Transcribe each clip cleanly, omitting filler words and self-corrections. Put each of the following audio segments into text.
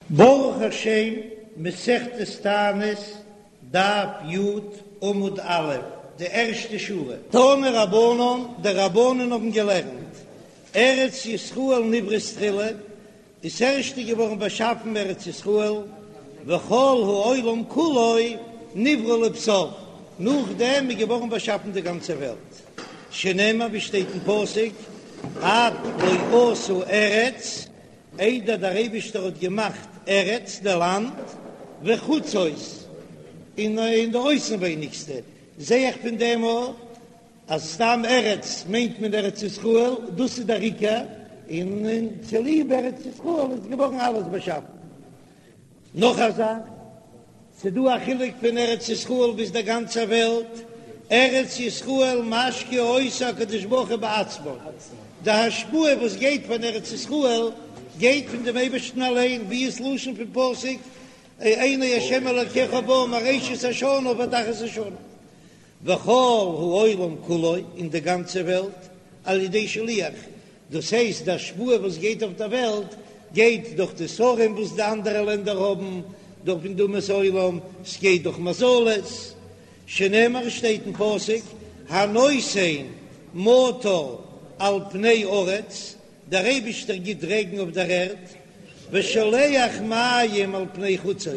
ברוך השם, מסכת תענית, דף י, עמוד א', די ערשטע שורה. תנו רבנן, די רבנן האבן געלערנט, ארץ ישראל נבראת תחילה, איז ערשטע געווארן באשאפן ארץ ישראל, וכל העולם כולו נברא לבסוף, נאכדעם איז געווארן באשאפן די גאנצע וועלט, שנאמר ווי שטייט אין פסוק, עד לא עשה ארץ, איידער דער אייבישטער האט געמאכט ארץ, די לאנד, וחוצות, און די אויסנווייניגסטע, זע איך פון דעם אויך אז סתם ארץ מיינט מען ארץ ישראל, דאס איז דער עיקר, און צוליב ארץ ישראל איז געווארן אלעס באשאפן. נאך א זאך, ס'דא א חילוק פון ארץ ישראל ביז דער גאנצער וועלט, ארץ ישראל משקה אותה הקדוש ברוך הוא בעצמו, די השפעה וואס גייט פון ארץ ישראל גייט פון דעם אייבערשטן אליין, ווי איז לשון פון פסוק עיני השם אלקיך בה מראשית השנה ועד אחרית השנה. וכל העולם כולו, און די גאנצע וועלט, על ידי שליח, דאס הייסט די השפעה וואס גייט אויף דער וועלט גייט דורך די שרים וואס די אנדערע לענדער האבן, דורך פון די אומות העולם, ס'גייט דורך מזלות, שנאמר שטייט אין פסוק, הנותן מטר על פני ארץ, דער אייבישטער גיט רעגן אויף דער ערד, ושולח מים על פני חוצות,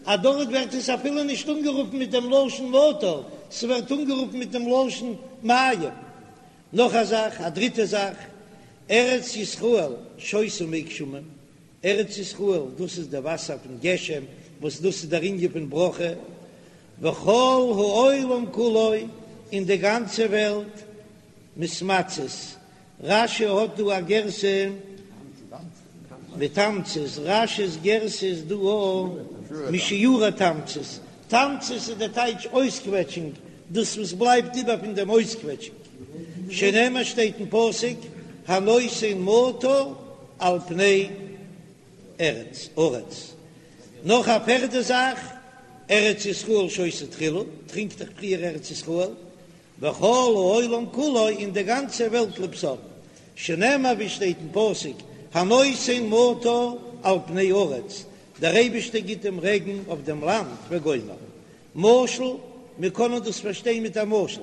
אז דארט ווערט עס אפילו נישט אנגערופן מיט דעם לשון מטר, ס'ווערט אנגערופן מיט דעם לשון מים. נאך א זאך, א דריטע זאך, ארץ ישראל שותה מי גשמים, ארץ ישראל דאס איז די וואסער פון גשם, וואס דאס איז דער ענין פון ברכה, וכל העולם כולו, און די גאנצע וועלט, מתמצית, רש"י האט דא א גירסא מתמצית, רש"י'ס גירסא איז דא א משיורי תמצית, תמצית איז די טייטש אויסקוועטשונג, דאס וואס בלייבט איבער פון דעם אויסקוועטשונג, שנאמר שטייט אין פסוק הנותן מטר על פני ארץ, ארץ. נאך א פערדע זאך, ארץ ישראל שותה תחילה, טרינקט דאך פריער ארץ ישראל, וכל העולם כולו און די גאנצע וועלט לבסוף, שנאמר ווי שטייט אין פסוק, הנותן מטר על פני ארץ, דער אייבישטער גיט דעם רעגן אויף דעם לאנד וגומר. משל, מיר קענען דאס פארשטיין מיט א משל,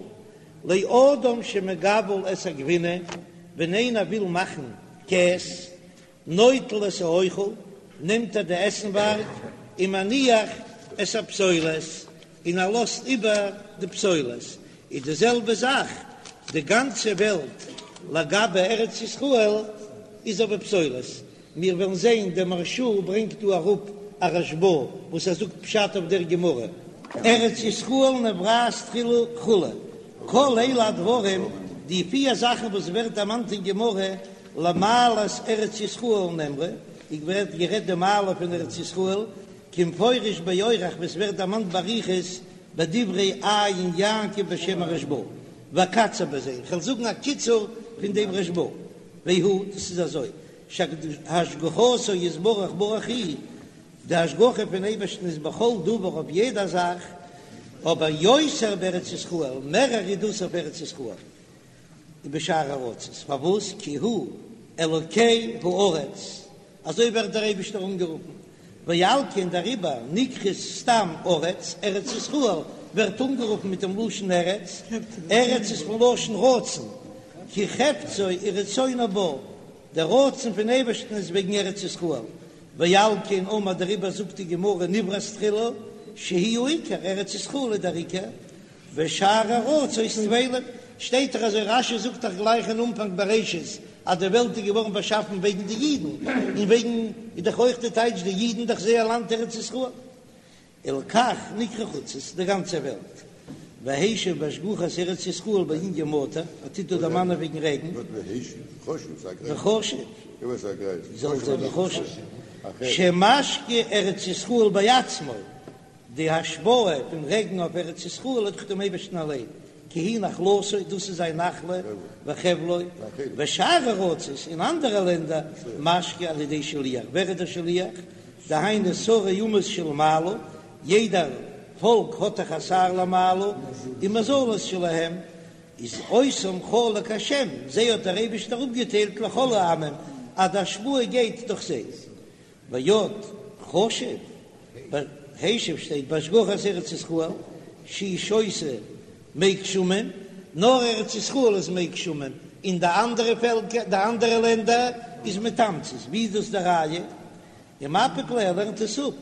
לאדם שמגבל את הגבינה, ווען איינער וויל מאכן קעז, נוטל את האוכל, נעמט ער די עסנווארג, ומניח את הפסולת, און ער לאזט איבער די פסולת. איז די זעלבע זאך, די גאנצע וועלט לגבי ארץ ישראל איז אבער פסולת. מיר וועלן זען, דער מהרש"א ברענגט דא אראפ א רשב"א וואס ער זאגט פשט אויף דער גמרא, ארץ ישראל נבראת תחילה כו', כל אלו הדברים, די פיר זאכן וואס ווערט דערמאנט אין גמרא, למעלת ארץ ישראל נאמרו, איז ווערט גערעדט די מעלה פון ארץ ישראל, כמפורש באורך וואס ווערט דערמאנט באריכות בדברי עיין יעקב בשם הרשב"א, ואקצר בזה, איך וועל זאגן א קיצור פון דעם רשב"א, והוא, דאס איז אזוי, שהשגחתו יתברך ברוך הוא, די השגחה פון אייבערשטן איז בכל דבר אויף יעדע זאך, אבער יותר בארץ ישראל, מערער איז דאס אויף ארץ ישראל. ובשאר ארצות, פארוואס? כי הוא אלוקי הארץ, אזוי ווערט דער אייבישטער אנגערופן, ועל כן דעריבער נקראת סתם ארץ, ארץ ישראל ווערט אנגערופן מיט דעם לשון ארץ, ארץ איז פון לשון רצון, כי חפצו ורצונו בה, דער רצון פון אייבערשטן איז וועגן ארץ ישראל, ועל כן אמר דעריבער זאגט די גמרא נבראת תחילה שהיא העיקר, ארץ ישראל איז דער עיקר, ושאר ארצות טפלים, שטייט דאך אזוי רש"י זאגט דאך גלייך אין אנפאנג בראשית אז די וועלט איז געווארן באשאפן וועגן די אידן, און וועגן איז דאך אויך די טייטש די אידן דאך זייער לאנד ארץ ישראל, ולכך נקרא חוצות די גאנצע וועלט, והשיב בהשגחת ארץ ישראל בענין מטר, ער טוט דא דערמאנען וועגן רעגן, וחשוב, זאל זיין וחשוב, שמשקה ארץ ישראל בעצמו. די השפעה פון רעגן אויף ארץ ישראל איז דורך דעם אייבערשטן אליין, כי היא נחלתו, דאס איז זיין נחלה וחבלו, ושאר ארצות, אין אנדערע לענדער, משקה על ידי שליח, ווער איז דער שליח? דהיינו שרי אומות שלמעלה, יעדער פאלק האט דאך א שר למעלה, ומזלות שלהם, איז אותם חלק השם, זיי האט דער אייבערשטער אפגעטיילט לכל העמים, אז די השפעה גייט דורך זיי. ועוד. חשוב, השיב שטייט בהשגחת ארץ ישראל שהיא שותה מי גשמים, נאר ארץ ישראל איז מי גשמים, און די אנדערע פעלקער, די אנדערע לענדער איז מתמצית, ווי איז דאס די ראיה? ומפיק ליה, ער לערנט עס אפ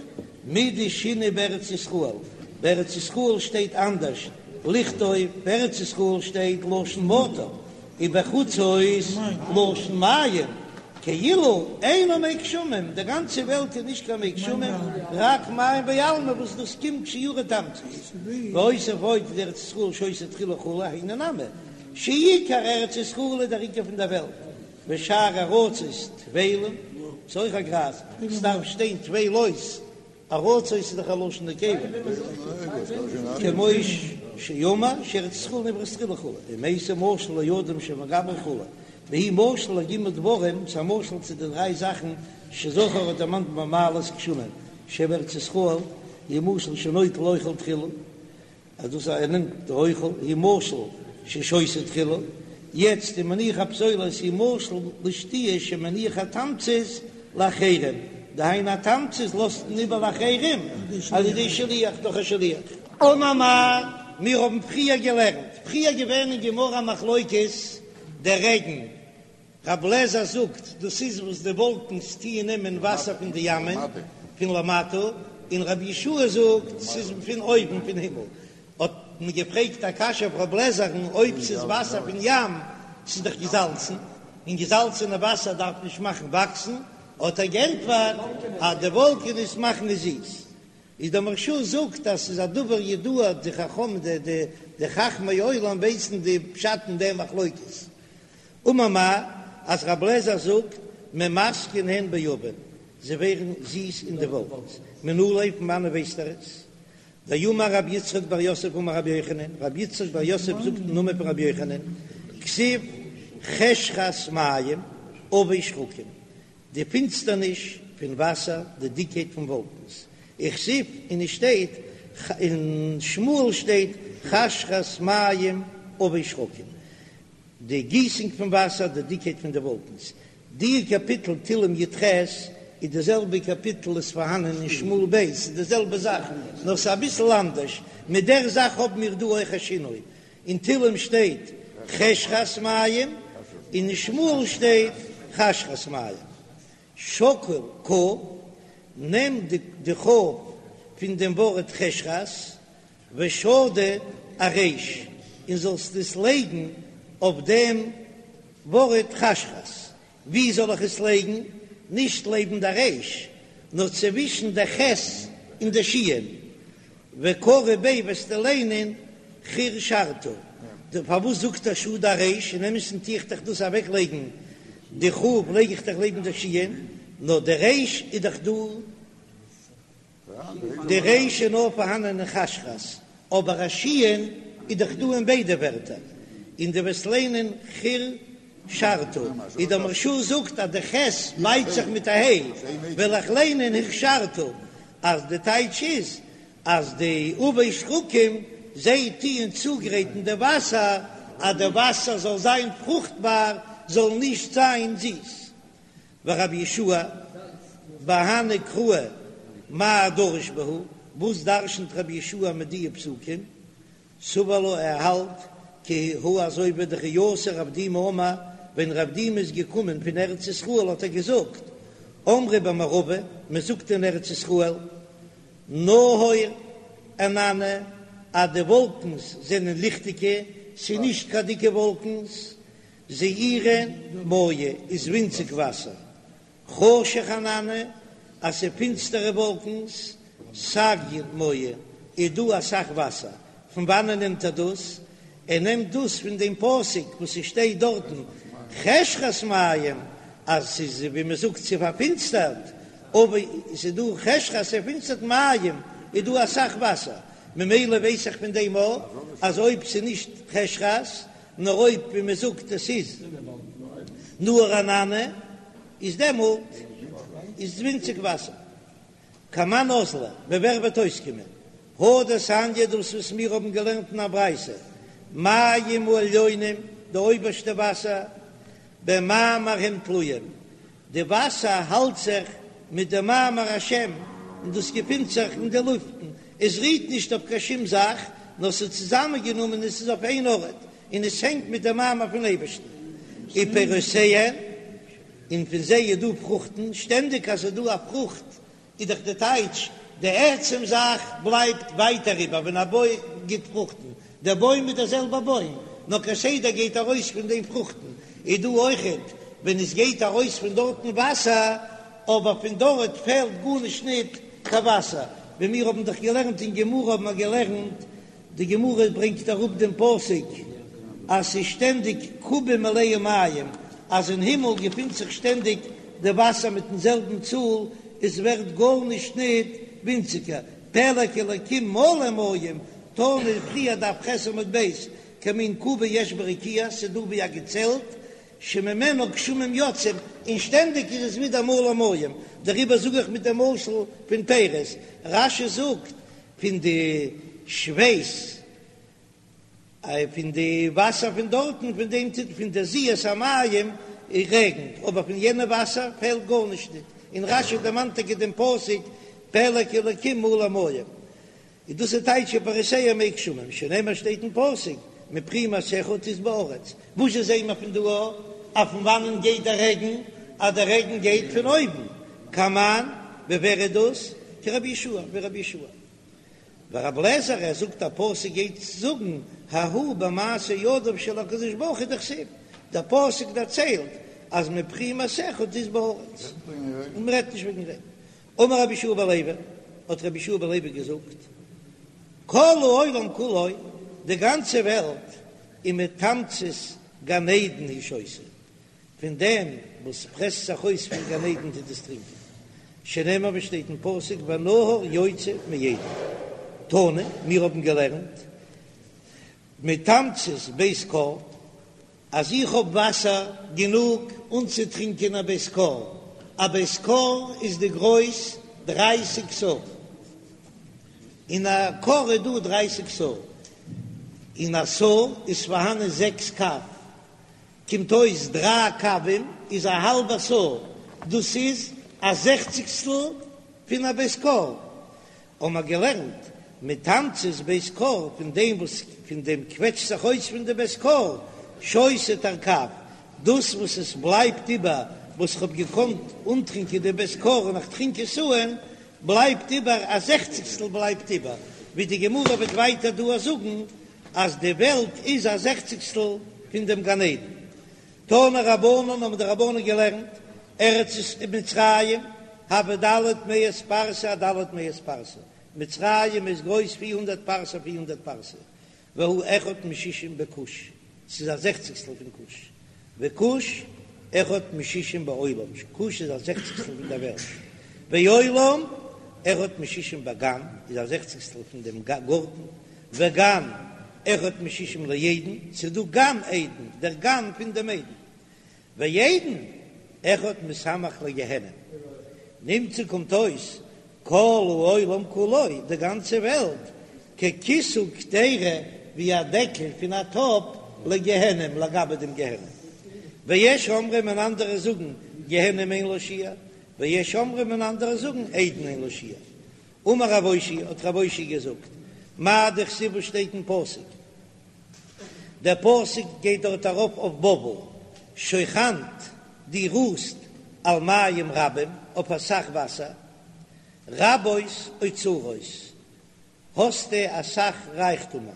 מדשני בארץ ישראל, בארץ ישראל שטייט אנדערש, לכתוב בארץ ישראל שטייט לשון מטר, ובחוצות לשון מים, כאילו אינו מי גשמים, די גאנצע וועלט איז נישט קיין מי גשמים, רק מים בעלמא וואס דאס קומט שיורי תמצית, והוסיף עוד דארץ ישראל שותה תחילה כו' היינו נמי, שעיקר ארץ ישראל איז דער עיקר פון דער וועלט, ושאר ארצות טפלים, ס'איז אויך א גרייז, ס'דארף שטיין טפלות, ארצות איז דאך א לשון נקבה, כמו שאמר שארץ ישראל נבראת תחילה כו', ומייתי משל לאדם שמגמר כו', והוא משל לג' דברים, ס'איז א משל צו די דריי זאכן שזכר האט דערמאנט במעלות גשמים, שבארץ ישראל, הוא משל שנוטל אוכל תחילה, אז דאס ער נעמט די אוכל הוא משל ששותה תחילה, יעצט ומניח הפסולת הוא משל לשתיה שמניח התמצית לאחרים, דהיינו א תמצית לאזט מען איבער לאחרים על ידי שליח דורך א שליח. אמר מר, מיר האבן פריער געלערנט, פריער געווען אין גמרא מחלוקת דער רעגן רב לעזער זאגט, דאס איז וואס די וואלקנס טוען נעמען וואסער פון די ימ'ען פון למטה, און רבי יהושע זאגט, ס'איז פון אויבן פון הימל. האט מען געפרעגט א קשיא אויף רב לעזער'ן, אויב ס'איז וואסער פון ים, ס'איז דאך געזאלצן, און געזאלצענע וואסער דארף נישט מאכן וואקסן, האט ער גענטפערט אז די וואלקענעס מאכן עס זיס. איז דער מהרש"א זאגט אז ס'איז א דבר ידוע, די חכמים די חכמי עולם ווייסן די פשט אין דעם מחלוקת. אמר מר, אז רב לעזער זאגט ממתקין הן בעבים, זיי ווערן זיס אין די וואלקנס, מנא ליה פון וואנען ווייסט ער עס? דאמר רב יצחק בר יוסף אמר רבי יוחנן, רב יצחק בר יוסף זאגט אין נאמען פון רבי יוחנן, כתיב חשכת מים עבי שחקים, די פינסטערניש פון וואסער, די דיקקייט פון וואלקנס, וכתיב און עס שטייט אין שמואל שטייט חשכת מים עבי שחקים, די גיסונג פון וואסער, די דיקקייט פון די וואלקנס. די קאפיטל תהלים י"ח איז די זעלבע קאפיטל איז פארהאנען אין שמואל ב', ס'איז די זעלבע זאך נאר ס'איז אביסל אנדערש, מיט דער זאך האבן מיר דא אויך א שינוי, אין תהלים שטייט חשכת מים און אין שמואל שטייט חשכת מים. שקול כ"ף, נעם די כ"ף פון דעם ווארט חשכת, ושדי אריש, און זאלסט עס לייגן אויף דעם ווארט חשכת. ווי זאל איך עס לייגן? נישט לעבן די ריש, נאר צווישן די ח' און די שין. וקרי ביה וועסטו ליינען חרשרת. פארוואס זאגט ער שדי אריש? אין אמת'ן טו איך דאך דאס אוועק לייגן, די כ"ף לייג איך דאך לעבן די שין, נאר די ריש איז דאך דא. די ריש איז נאר פארהאנען אין חשכת, אבער א שין איז דאך דא אין ביידע ווערטער, און דו וועסט ליינען חרשרת, ווי דער מהרש"א זאגט אז די ח' בייט זיך מיט א ה', וועל איך ליינען הכשרת, אז די טייטש איז אז די עבי שחקים זיי טוען צוגרייטן די וואסער אז די וואסער זאל זיין פרוכטבאר, זאל נישט זיין זיס. ורבי יהושע בהני קראי מאי דריש בהו, וואס דרשנ'ט רבי יהושע מיט דיע פסוקים? סבר לה ער האלט כי הא אזוי ווי דכי אתא רב דימי אמר, ווען רב דימי איז געקומען פון ארץ ישראל האט ער געזאגט, אמרי במערבא, מען זאגט אין ארץ ישראל, נהור ענני, אז די וואלקנס זענען ליכטיגע, ס'איז נישט קיין דיקע וואלקנס, זעירין מיא איז ווינציג וואסער, חשך ענני אז ס'איז פינסטערע וואלקנס, סגיין מיא איז דא אסאך וואסער, פון וואנען נעמט ער דאס? ער נעמט דאס פון דעם פסוק וואס ס'שטייט דארטן חשכת מים אז ס'איז ווי מ'זאגט ס'איז פארפינסטערט, אבער ס'איז דא חשכת ס'איז פארפינסטערט מים איז דא אסאך וואסער, ממילא ווייס איך פון דעם אויך אז אויב ס'איז נישט חשכת נאר אויב ווי מען זאגט עס איז נהור ענני איז דעמאלט איז ווינציג וואסער. כמאן אזלא, ווי ווער וועט אויסקומען? הא דתניא דאס וואס מיר האבן געלערנט אין א ברייתא, מים העליונים, די אויבערשטע וואסער, במאמר הם תלויים, די וואסער האלט זיך מיט די מאמר השם. און דאס געפינט זיך אין די לופטן, עס רוהט נישט אויף קיין שום זאך, נאר ס'איז צוזאמענגענומען און ס'איז אויף איין ארט, און עס הענגט מיט דעם מאמר פון אייבערשטן. ופירותיהן, און פון זיי איז דא פרוכטן, שטענדיג אז ס'איז דא א פרוכט איז דאך די טייטש, די עצם זאך בלייבט ווייטער איבער ווען א בוים גיט פרוכטן, דער בוים איז דער זעלבער בוים, נאר כסדר גייט ארויס פון דעם פרוכטן, איז דא אויכעט ווען עס גייט ארויס פון דארטן וואסער, אבער פון דארט פעלט גארנישט ניט קיין וואסער, ווי מיר האבן דאך געלערנט אין גמרא האבן מיר געלערנט די גמרא ברענגט אראפ דעם פסוק אז ס'איז שטענדיג קובה מלאה מים, אז אין הימל געפינט זיך שטענדיג די וואסער מיטן זעלבן צאל, עס ווערט גארנישט ניט ווינציגער, פלג אלקים מלא מים, תנא פריער דף ח' עמוד ב', כמין קובה יש ברקיע, ס'איז דא ווי א געצעלט, שממנו גשמים יוצאים, און שטענדיג איז עס ווידער מלא מים, דעריבער זאג איך מיט דעם משל פון פירות, רש"י זאגט פון די שווייס, פון די וואסער פון דארטן, פון דעם טוט פון די זיעת המים רעגנט, אבער פון יענע וואסער פעלט גארנישט ניט, און רש"י דערמאנט טאקע דעם פסוק פלג אלקים מלא מים, איז דאס איז טייטש ופירותיהן מי גשמים, שנאמר שטייט אין פסוק מפרי מעשיך תשבע הארץ, וואס זשע זעהן מיר פון דא אז פון וואנען גייט דער רעגן, אז דער רעגן גייט פון אויבן, כמאן, ווי ווער איז דאס? כרבי יהושע, ווי רבי יהושע. ורבי אליעזר ער זאגט א פסוק גייט זאגן ההוא במעשה ידיו של הקדוש ברוך הוא דכתיב, דער פסוק דערציילט אז מפרי מעשיך תשבע הארץ, און מ'רעדט נישט וועגן רעגן. אמר רבי יהושע בן לוי, האט רבי יהושע בן לוי געזאגט, כל העולם כולו, די גאנצע וועלט, איז מתמצית גן עדן הוא שותה, פון דעם וואס פרעסט זיך אויס פון גן עדן טוט עס טרינקען, שנאמר ווי שטייט אין פסוק ונהר יוצא מעדן, תנא, מיר האבן געלערנט, מתמצית בית כור, אז איך האב וואסער גענוג אנצוטרינקען א בית כור, א בית כור איז די גרויס דרייסיג סאה, אין א כור איז דא דרייסיג סאה, אין א סאה איז פארהאנען זעקס קב, קומט אויס דריי קבים איז א האלבע סאה, דאס איז א זעכציגסטל פון א בית כור, האבן מיר געלערנט מתמצית בית כור, פון דעם וואס פון דעם קוועטשט זיך אויס פון די בית כור, שותה תרקב, דאס וואס עס בלייבט איבער וואס איך האב געקאנט אנטרינקען די בית כור און איך טרינק עס אן, בלייבט איבער א זעכציגסטל בלייבט איבער, ווי די גמרא וועט ווייטער דא זאגן אז די וועלט איז א זעכציגסטל פון דעם גן עדן. תנו רבנן האבן די רבנן געלערנט, ארץ מצרים הוה ד' מאות פרסה אד' מאות פרסה, מצרים איז גרויס 400 פרסה 400 פרסה, והוא אחד משישים בכוש, ס'איז א זעכציגסטל פון כוש, וכוש אחד משישים בעולם, כוש איז א זעכציגסטל פון דער וועלט, ועולם אחד משישים בגן, איז א זעכציגסטל פון דעם גארטן, וגן אחד משישים לעדן, ס'איז דא גן עדן, דער גן פון דעם עדן, ועדן אחד מסמ"ך לגיהנם, נמצא קומט אויס כל העולם כולו, די גאנצע וועלט, ככיסוי קדירה, ווי א דעקל פון א טאפ, לגיהנם, לגבי דעם גיהנם. ויש אומרים און אנדערע זאגן, גיהנם אין לה שיעור, ויש אומרים און אנדערע זאגן, עדן אין לה שיעור. אמר רב אושעיא, האט רב אושעיא געזאגט, מאי דכתיב וואס שטייט אין פסוק, דער פסוק גייט דארט ארויף אויף בבל, שכנת דו רוסט על מים רבים, אויף אסאך וואסער, רבות אוצרות, האסטו אסאך רייכטומען.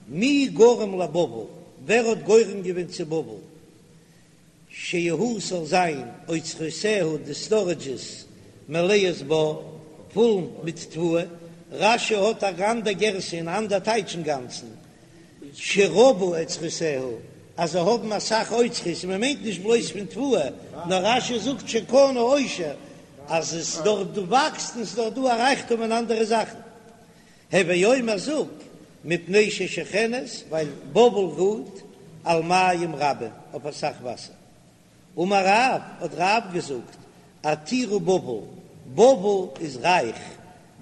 מי גרם לבבל, ווער האט גורם געווען צו בבל? שיהו ס'זאל זיין אוצרותיה די סטארעדזשעס מלאות בר פול מיט תבואה, רש"י האט אן אנדער גירסא און אנדער טייטש אינגאנצן, שרבו אוצרותיה אז זיי האבן אסאך אוצרות און מ'מיינט נישט בלויז פון תבואה, נאר רש"י זאגט שקנו עושר אז עס דארט דא וואקסט און ס'איז דארט דא א רייכטום אין אנדערע זאכן. הוי אומר זאג, מפני ששוכנת, ווייל בבל רוהט על מים רבים, אויף אסאך וואסער. אמר רב, האט רב געזאגט, עתירה בבל, בבל איז רייך,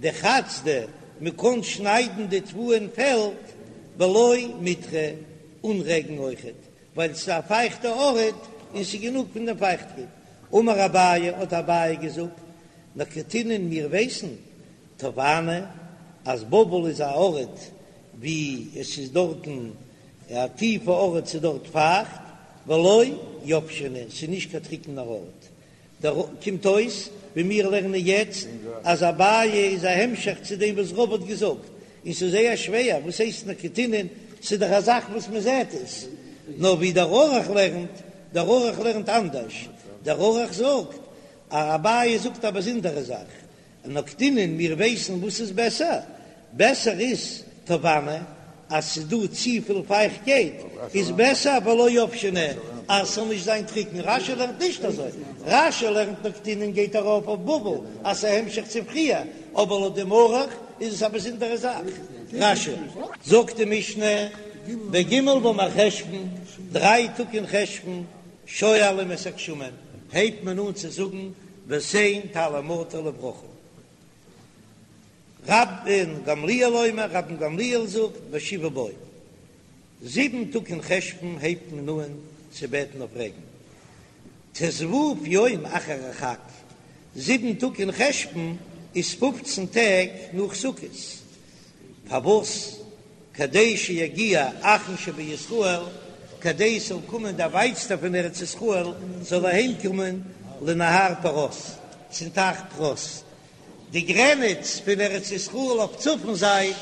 דחצדא, מען קען שניידן די תבואה אין פעלד, בלא מיטרא, אן רעגן אויכעט, ווייל ס'איז א פייכטע ארט און ס'איז גענוג פון דעם פייכטקייט. אמר אביי, האט אביי געזאגט, נקטינן מיר ווייסן טובעני אז בבל איז א ארט ווי עס איז דארטן א טיפע ארט ס'איז דארט פייכט ולא יבשנא ס'איז נישט קיין טריקענער ארט דער קומט אויס ווי מיר לערנען יעצט אז אביי איז א המשך צו דעם וואס רבא האט געזאגט, און ס'איז זייער שווער, וואס הייסט נקטינן, ס'איז דאך א זאך וואס מען זעט עס, נאר ווי דער ערוך לערנט, דער ערוך לערנט אנדערש, דער ערוך זאגט אז אביי זאגט א באזונדערע זאך, נקטינן, מיר ווייסן וואס איז בעסער, בעסער איז טובעני, אז ס'איז דא צופיל פייכטקייט איז בעסער ולא יבשנא אז ס'זאל נישט זיין טריקן, רש"י לערנט נישט אזוי, רש"י לערנט נקטינן גייט ארויף אויף בבל אז ס'איז א המשך צו פריער, אבער לויט דעם ערוך איז עס א באזונדערע זאך. רש"י. זאגט די משנה, בג' במרחשוון, דריי טאג אין חשוון, שואלים את הגשמים, הייבט מען אן צו זאגן ותן טל ומטר לברכה. רבן גמליאל אומר, רבן גמליאל זאגט, בשבעה בו, זיבן טאג אין חשוון הייבט מען אן צו בעטן אויף רעגן, ט"ו יום אחר החג, זיבן טאג אין חשוון איז פופצן טעג נאך סוכות, פארוואס? כדי שיגיע אחרון שבישראל, כדי ס'זאל קומען דער ווייטסטער פון ארץ ישראל זאל אהיים קומען לנהר פרת, צום טייך פרת. די גרעניץ פון ארץ ישראל אויף צפון זייט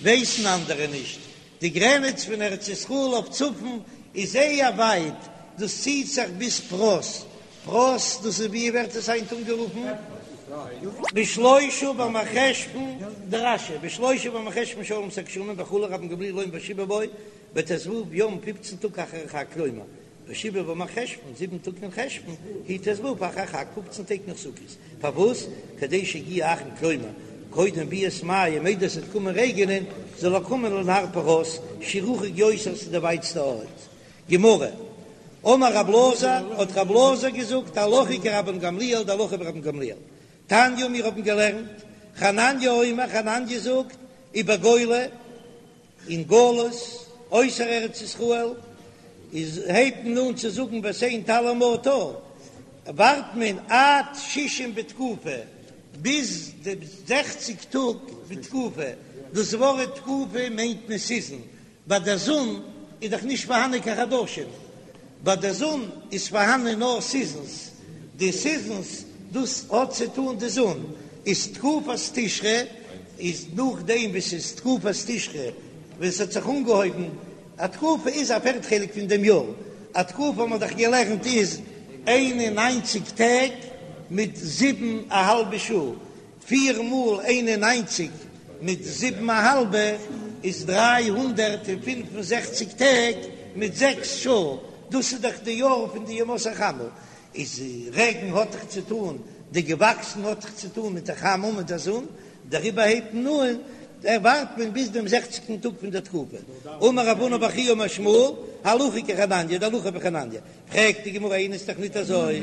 ווייסן אנדערע נישט, די גרעניץ פון ארץ ישראל אויף צפון איז זייער ווייט, דאס ציט זיך ביז פרת, פרת דאס איז ווי ווערט עס היינט אנגערופן? בשלושה במרחשוון דרש"י, בשלושה במרחשוון שואלים את הגשמים וכו' רבן גמליאל אומר בשבעה בו בט"ו יום פופצן טאג אחר החג כלומר בשבעה במרחשוון זיבן טאג אין חשוון הוא ט"ו אחר החג פופצן טעג נאך סוכות פארוואס כדי שיגיע האחרון כלומר קודם ביאת מים איידער ס'וועט קומען רעגענען זאל ער קומען לנהר פרת שהוא רחוק יותר ס'איז די ווייטסטע ארט גמרא, אמר רב אלעזר, האט רב אלעזר געזאגט, הלכה כרבן גמליאל, די הלכה ווי רבן גמליאל. תניא, מיר האבן געלערנט, חנניה אומר, חנניה זאגט, ובגולה, אין גלות, אויסער ארץ ישראל, איז הייבט מען אן צו זאגן ותן טל ומטר, ווארט מען עד שישים בתקופה, ביז די זעכציג טאג בתקופה, דאס ווארט תקופה מיינט מען סיזען, ביי דער זון איז דאך נישט פארהאנען קיין חדשים, ביי דער זון איז פארהאנען נאר סיזענס, די סיזענס דאס האט צו טאן די זון, איז תקופת תשרי איז נאכדעם וואס איז תקופת תשרי ווען ס'האט זיך אנגעהויבן, א תקופה איז א פערט חלק פון דעם יאר, א תקופה האט מען דאך געלערנט איז 91 טעג מיט זיבן א האלבע שעה, פיר מאל 91 מיט זיבן א האלבע איז 365 טעג מיט זעקס שעה, דאס איז דאך די יאר פון די ימות החמה, איז רעגן האט דאך צו טאן, די געוואקסן האט דאך צו טאן מיט די חמה מיט די זון, דעריבער הייבט מען אן, ווארט מען ביז דעם זעכציגטן טאג פון דער תקופה. אמר רב הונא בר חייא אמר שמואל, הלכה כחנניה, די הלכה ווי חנניה, פרעגט די גמרא איני ס'איז דאך ניט אזוי,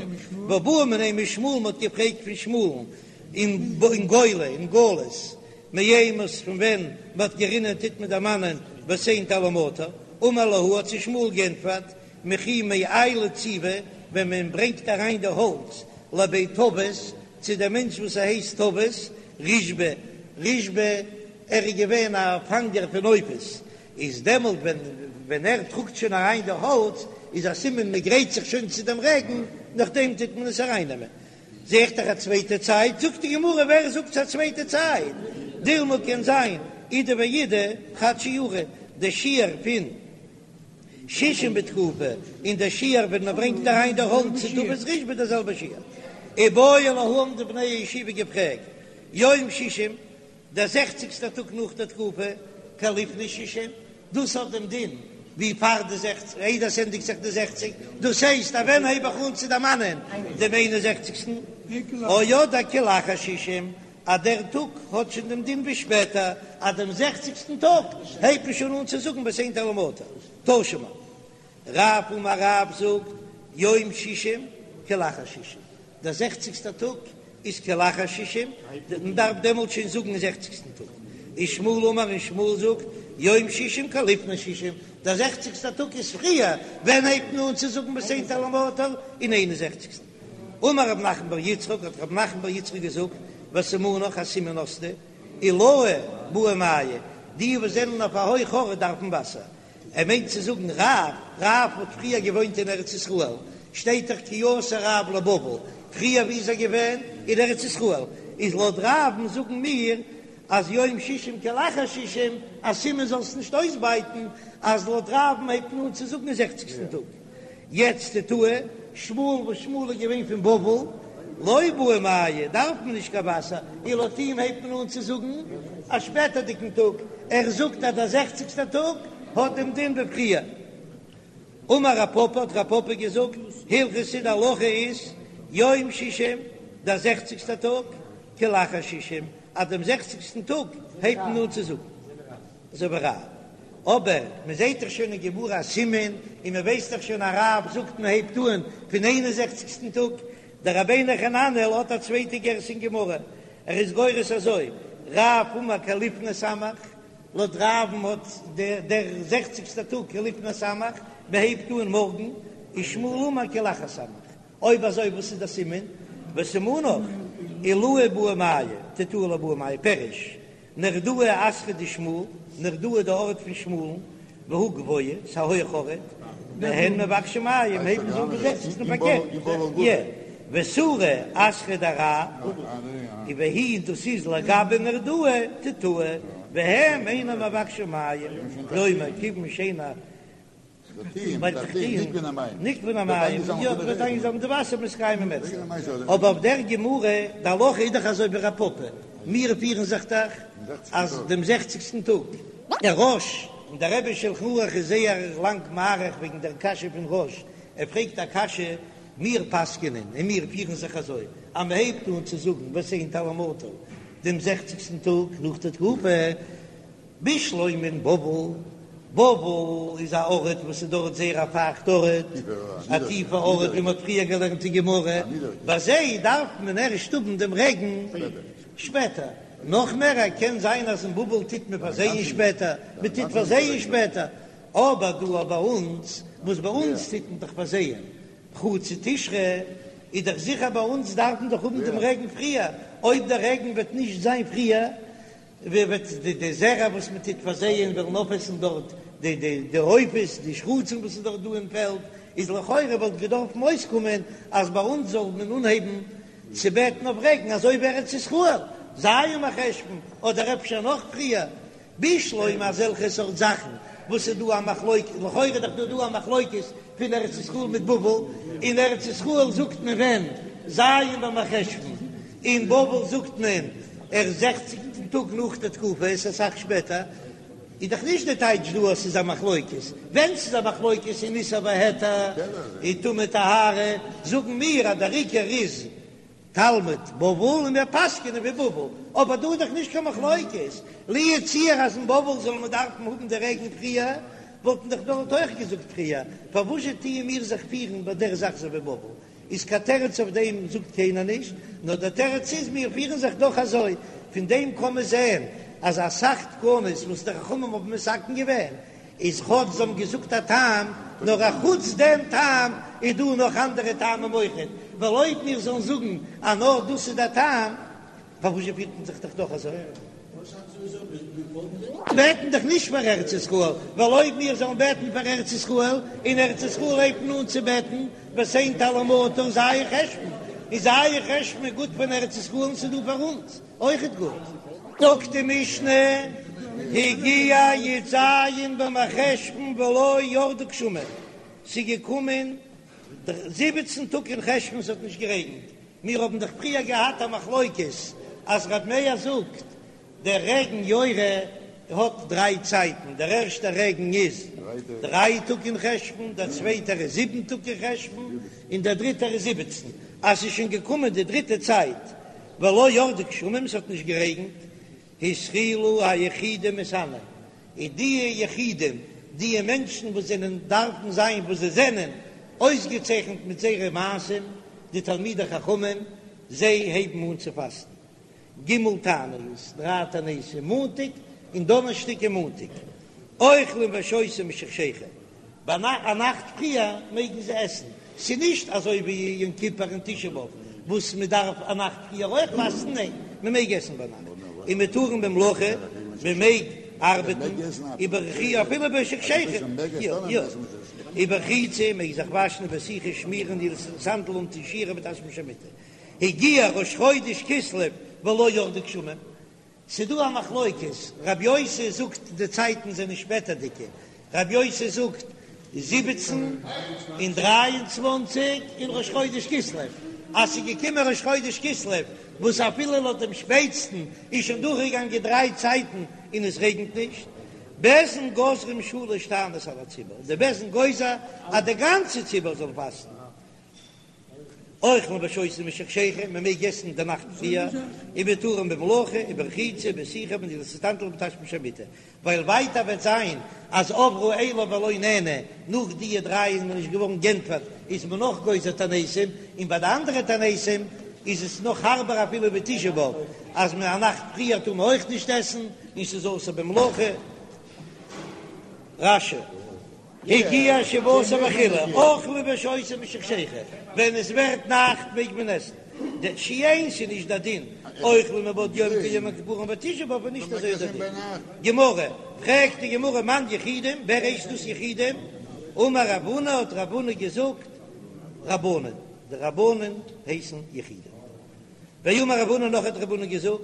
והא בעו מיניה משמואל מ'האט געפרעגט פון שמואל'ן אין גולה אין גלות מאימת פון ווען מ'האט גערינען טוט מען דערמאנען ותן טל ומטר, אמר להו האט זיי שמואל גענטפערט מכי מעיילי ציבי ווען מען ברענגט אריין די האלץ לבי טבת צו דער מענטש וואס ער הייסט טבת רישבא רישבא ער איז געווען א פאנגער פון עופות איז דעמאלט ווען ווען ער טראגט שוין אריין די האלץ איז א סימן מען גרייט זיך שוין צו דעם רעגן, נאכדעם טוט מען עס ארייננעמען. זע איך דאך א צווייטע צייט, זאגט די גמרא ווער זאגט ס'איז א צווייטע צייט, דילמא קען זיין אידי ואידי חד שיעורא, די שיעור פון שישים בתקופה און די שיעור ווען מען ברענגט אריין די האלץ צו טבת רישבא די זעלבע שיעור. איבעיא להו האבן די בני הישיבה געפרעגט יום שישים דער זעכציגסטער טאג נאך דער תקופה, כלפני שישים, דאס האט דעם דין ווי פאר די זעכציג, איידער עס ענדיגט זיך די זעכציג, דאס הייסט אז ווען הייב איך אן צו דערמאנען דעם איין און זעכציגסטן, או אדער כלאחר שישים, אז דער טאג האט שוין דעם דין ווי שפעטער, אז דעם זעכציגסטן טאג הייבט מען שוין אן צו זאגן ותן טל ומטר, תא שמע. רב אמר רב זאגט יום שישים כלאחר שישים, דער זעכציגסטער טאג איז כלאחר שישים, מען דארף דעמאלט שוין זאגן אין זעכציגסטן טאג. ושמואל אמר און שמואל זאגט יום שישים כלפני שישים, דער זעכציגסטער טאג איז פריער, ווען הייבט מען אן צו זאגן ותן טל ומטר? אין איין און זעכציגסטן. אמר רב נחמן בר יצחק, האט רב נחמן בר יצחק געזאגט, וסימנך א סימן האסטו, עילאי בעו מיא, די וואס זענען אויף א הויך ארט דארפן וואסער. ער מיינט צו זאגן רב, רב האט פריער געוואוינט אין ארץ ישראל, שטייט דאך כי אתא רב לבבל, פריער ווי איז ער געווען? אין ארץ ישראל, איז לויט רב'ן זאגן מיר אז יום שישים כלאחר שישים, א סימן זאלסט נישט אויסבייטן אז לויט רב'ן הייבט מען אן צו זאגן אין זעכציגסטן טאג. יעצט תתאי, שמואל וואס שמואל איז געווען פון בבל, לא בעו מיא, דארף מען נישט קיין וואסער, און לויט אים הייבט מען אן צו זאגן א שפעטערדיגן טאג, ער זאגט אז דער זעכציגסטער טאג האט דעם דין ווי פריער. אמר רב פפא, האט רב פפא געזאגט, הלכתא די הלכה איז, יום שישים, דער זעכציגסטער טאג, כלאחר שישים, אז דעם זעכציגסטן טאג הייבט מען אן צו זאגן. אזוי ווי רב. אבער מען זעט דאך שוין אין גמרא א סימן, און מען ווייסט דאך שוין אז רב זאגט מען הייבט אן פון איין און זעכציגסטן טאג. דער רבינו חננאל האט א צווייטע גירסא אין גמרא, ער איז גורס אזוי, רב אמר כלפני סמך, לויט רב'ן האט דער זעכציגסטער טאג כלפני סמך, מען הייבט אן מארגן, ושמואל אמר כלאחר סמך. אויב אזוי וואס איז דער סימן? וסימנך, עילאי בעו מיא, תתאי לא בעו מיא, פירוש, נהרדעא אתרא דשמואל, נהרדעא די ארט פון שמואל'ן, והוא גבוה, ס'א הויך ארט, והן מבקשין מים, הייבן זיי אן פון זעכציגסטן פארקערט, יע, וסורא אתרא דרב, והיא דאס איז לגבי נהרדעא תתאי, והם אינם מבקשין מים, כלומר כיוון שאין נגבין המים, יא, ווערט איינגעזאמלט די וואסער מתקיימים אצלם. אבער אויף דער גמרא, די הלכה איז דאך אזוי ווי רב פפא, מיר פירן זיך דאך אז דעם זעכציגסטן טאג. דער רא"ש און דער רבי שלחן ערוך איז זייער לאנג מאריך וועגן דער קשיא פון רא"ש, ער פרעגט א קשיא, מיר פסק'ענען און מיר פירן זיך אזוי אז מען הייבט אן צו זאגן ותן טל ומטר דעם זעכציגסטן טאג נאך די תקופה, בשלמא אין בבל, בבל איז א ארט וואס איז דארט זייער א פייכט ארט, א טיפע ארט ווי מען האט פריער געלערנט אין גמרא, ביי זיי דארף מען ערשט האבן דעם רעגן שפעטער, נאך מער קען זיין אז אין בבל טוט מען פארזייען שפעטער, מען טוט פארזייען שפעטער, אבער דא ביי אונז, וואס ביי אונז טוט מען דאך פארזייען חצי תשרי, איז דאך זיכער ביי אונז דארף מען דאך האבן דעם רעגן פריער, אויב דער רעגן וועט נישט זיין פריער, ווער וועט די די זרע וואס מען טוט פארזייען וועלן אויפעסן דארט די די די עופות די שרצים וואס איז דארט דא אין פעלד, איז לכאורה וואלט געדארפן אויסקומען אז ביי אונז זאל מען אנהייבן צו בעטן אויף רעגן אזוי ווי ארץ ישראל, ז' מרחשון אדער אפשר נאך פריער, בשלמא אזעלכע סארט זאכן וואס איז דא א מחלוקת, לכאורה איז דאך דא דא א מחלוקת פון ארץ ישראל מיט בבל, אין ארץ ישראל זאגט מען ווען? ז' במרחשון, אין בבל זאגט מען ערשט זעכציגטן טאג נאך די תקופה, עס איז אסאך שפעטער, איז דאך נישט די טייטש דא אז ס'איז א מחלוקת, ווען ס'איז א מחלוקת אין איסור והיתר און טומאה טהרה, זאגן מיר אז דער עיקר איז תלמוד בבל און מיר פסק'ענען ווי בבל, אבער דא איז דאך נישט קיין מחלוקת, לו יצוייר אז אין בבל זאל מען דארפן האבן די רעגן פריער, וואלט מען דאך דארט אויך געזאגט פריער, פארוואזשע טוען מיר זיך פירן ביי דער זאך אזוי ווי בבל? איז קיין תירוץ אויף דעם זאגט קיינער נישט, נאר דער תירוץ איז מיר פירן זיך דאך אזוי, פון דעם קען מען זען אז אסאך תקנות וואס די חכמים האבן מתקן געווען איז כאטש זיי האבן געזאגט א טעם, נאר א חוץ דעם טעם איז דא נאך אנדערע טעמים אויכעט, ווייל אויב מיר זאלן זאגן אז נאר דאס איז דער טעם, פארוואס פירט מען זיך דאך דאך אזוי? בעטן דאך נישט פאר ארץ ישראל, ווייל אויב מיר זאלן בעטן פאר ארץ ישראל, אין ארץ ישראל הייבט מען אן צו בעטן ותן טל ומטר ז' חשון, איז ז' חשון איז גוט פאר ארץ ישראל און ס'איז דא פאר אונז אויכעט גוט. זאגט די משנה, הגיע י"ז במרחשון ולא ירדו גשמים, ס'איז געקומען 17 טאג אין חשון ס'האט נישט גערעגנט, מיר האבן דאך פריער געהאט א מחלוקת אז ר' מאיר זאגט דער רעגן יורה האט דריי צייטן, דער ערשטער רעגן איז דריי טאג אין חשון, דער צווייטער איז זיבן טאג אין חשון, און דער דריטער איז זיבעצן, אז ס'איז שוין געקומען די דריטע צייט ולא ירדו גשמים, ס'האט נישט גערעגנט, התחילו היחידים מתענין, און די יחידים, די מענטשן וואס זענען דארפן זיין וואס זיי זענען, אויסגעצייכנט מיט זייערע מעשים, די תלמידי חכמים, זיי הייבן אן צו פאסטן ג' תעניות, דריי תעניתים, מאנטאג און דאנערשטאג און מאנטאג, אוכלים ושותים משחשיכה, ביי א נאכט פריער מעגן זיי עסן. ס'איז נישט אזוי ווי יום כיפור און תשעה באב וואס מען דארף א נאכט פריער אויך פאסטן, ניין, מען מעג עסן ביינאכט, ומותרין במלאכה, מען מעג ארבעטן, וברחי אפילו בשחשיכה, יא יא, וברחיצה, מעג זיך וואשן, ובסיכה, שמירן, נעילת סנדל אנטון שיך ובתשמיש המיטה. הגיע ראש חודש כסלו ולא ירדו גשמים, ס'דא א מחלוקת, רב יוסי זאגט די צייטן זענען שפעטערדיגע, רב יוסי זאגט זיבעצן און דריי און צוואנציג אין ראש חודש כסלו, אז ס'איז געקומען ראש חודש כסלו וואס אפילו לויט דעם שפעטסטן איז שוין דורכגעגאנגען דריי צייטן און עס רעגנט נישט, בית דין גוזרים שלש תעניות על הציבור, די בית דין גוזר אז די גאנצע ציבור זאל פאסטן. אוכלין ושותין משחשיכה, מען מעג עסן די נאכט פריער, ומותרין במלאכה, וברחיצה, ובסיכה, ובנעילת הסנדל ובתשמיש המיטה, ווייל ווייטער וועט זיין אז עברו אלו ולא נענו, נאך דיע דריי איז מען נישט געווארן גענטפערט, איז מען נאך גוזר תעניתים, און ביי די אנדערע תעניתים איז עס נאך הארבער אפילו ווי תשעה באב, אז מען א נאכט פריער טאר מען אויך נישט עסן, און ס'איז אסור במלאכה. רש"י. הגיע שבעה עשר וכו', אוכלין ושותין משחשיכה, ווען עס ווערט נאכט מעג מען עסן, שאין ס'איז נישט דער דין, אוכלין מבעוד יום כיום הכיפורים ותשעה באב איז נישט אזוי דער דין. גמרא, פרעגט די גמרא מאן יחידים, ווער הייסט דאס יחידים? אמר רב הונא האט רב הונא געזאגט רבנן, די רבנן הייסן יחידים. ואמר רב הונא נאך האט רב הונא געזאגט,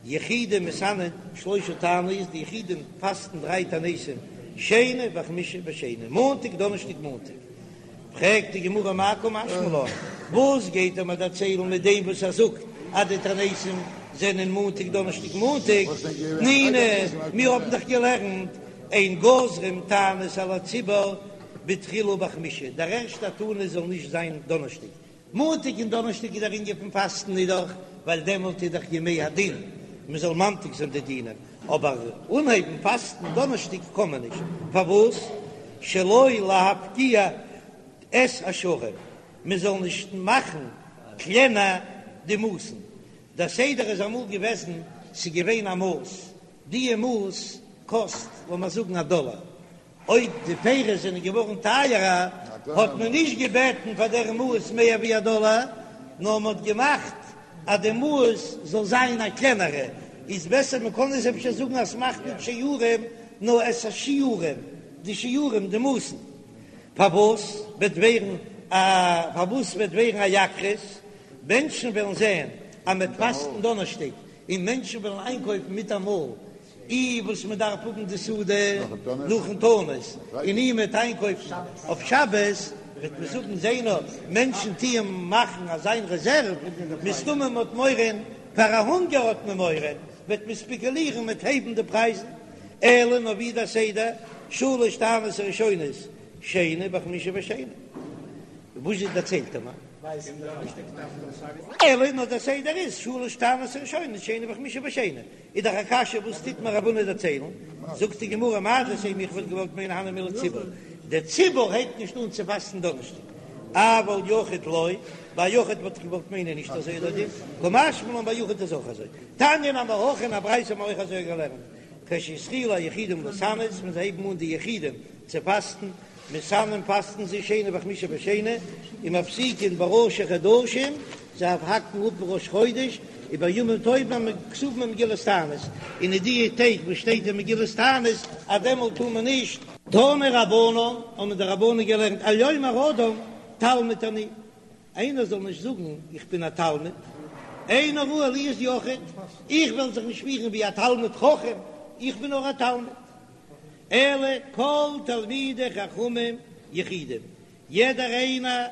יחידים מתענין שלשה תעניות, די יחידים פאסטן דריי תעניתים, שני וחמישי ושני, מאנטאג דאנערשטאג מאנטאג. פרעגט די גמרא מאי קא משמע לן, וואס גייט ער מיר דערציילן מיט דעם וואס ער זאגט אז די תעניתים זענען מאנטאג דאנערשטאג מאנטאג, תנינא, מיר האבן דאך געלערנט אין גוזרים תענית על הציבור בתחילה בחמישי, דער ערשטער תענית זאל נישט זיין דאנערשטאג, מאנטאג און דאנערשטאג איז דער ענין פון פאסטן איז דאך ווייל דעמאלט איז דאך ימי הדין מען זאל ממתיק זיין די דינים, אבער אנהייבן פאסטן דאנערשטאג קען מען נישט, פארוואס? שלא להפקיע את השערים, מען זאל נישט מאכן קלענער די מאסן, דער סדר איז אמאל געוועזן ס'איז געווען א מאס, דיע מאס קאסט לאמיר זאגן א דאלער, אויב די פירות זענען געווארן טייערער האט מען נישט געבעטן פאר דער מאס מער ווי א דאלער, נאר מען האט געמאכט אז די מאס זאל זיין א קלענערע, איז בעסער מען קען עס אפשר זאגן אז ס'מאכט נישט שערים נאר את השיעורים, די שיעורים די מאסן. פארוואס וועט ווערן א פארוואס וועט ווערן א יקרות? מענטשן וועלן זען אז מען וועט פאסטן דאנערשטאג און מענטשן וועלן איינקויפן מיטאמאל אי וואס מען דארף האבן די סעודה נאכן תענית, און אי מ'וועט איינקויפן אויף שבת, וועט מען זאגן זע נאר, מענטשן טוען מאכן אזיין רעזערוו, מסתמא מען האט מורא, פאר א הונגער האט מען מורא, וועט מען ספעקולירן מיט הייבן די פרייזן, אלא נאר ווי דער סדר, שלש תעניות הראשונות שני וחמישי ושני, וואס זשע דערציילט ער מיר? אלא נאר דער סדר איז שלש תעניות הראשונות שני וחמישי ושני. איז דאך א קשיא וואס טוט מיר רב הונא דערציילן, זאגט די גמרא מהו דתימא איך וואלט געוואלט מיינען הני מילי ציבור, דער ציבור הייבט נישט אן צו פאסטן דאנערשטאג, אבל יחיד לא, ביי יחיד וואלט איך געוואלט מיינען נישט אזוי איז דער דין, קא משמע לן ביי יחיד איז אויך אזוי, תניא נמי הכי אין א ברייתא האט מען אויך אזוי געלערנט, כשהתחילו היחידים להתענות, ווען זיי הייבן אן די יחידים צו פאסטן, מתענין פאסטן זיי שני וחמישי ושני, ומפסיקין בראשי חדשים, זיי האקן אפ ראש חודש, ובימים טובים הכתובים במגילת תענית, און אין די טעג וואס שטייט אין מגילת תענית אז דעמאלט טאר מען נישט. תנו רבנן, האבן די רבנן געלערנט, אל יאמר אדם תלמיד אני, איינער זאל נישט זאגן איך בין א תלמיד, איני ראוי להיות יחיד, איך וועל זיך נישט פירן ווי א תלמיד חכם, איך בין נאר א תלמיד. אלא כל תלמידי חכמים יחידים, יעדער איינער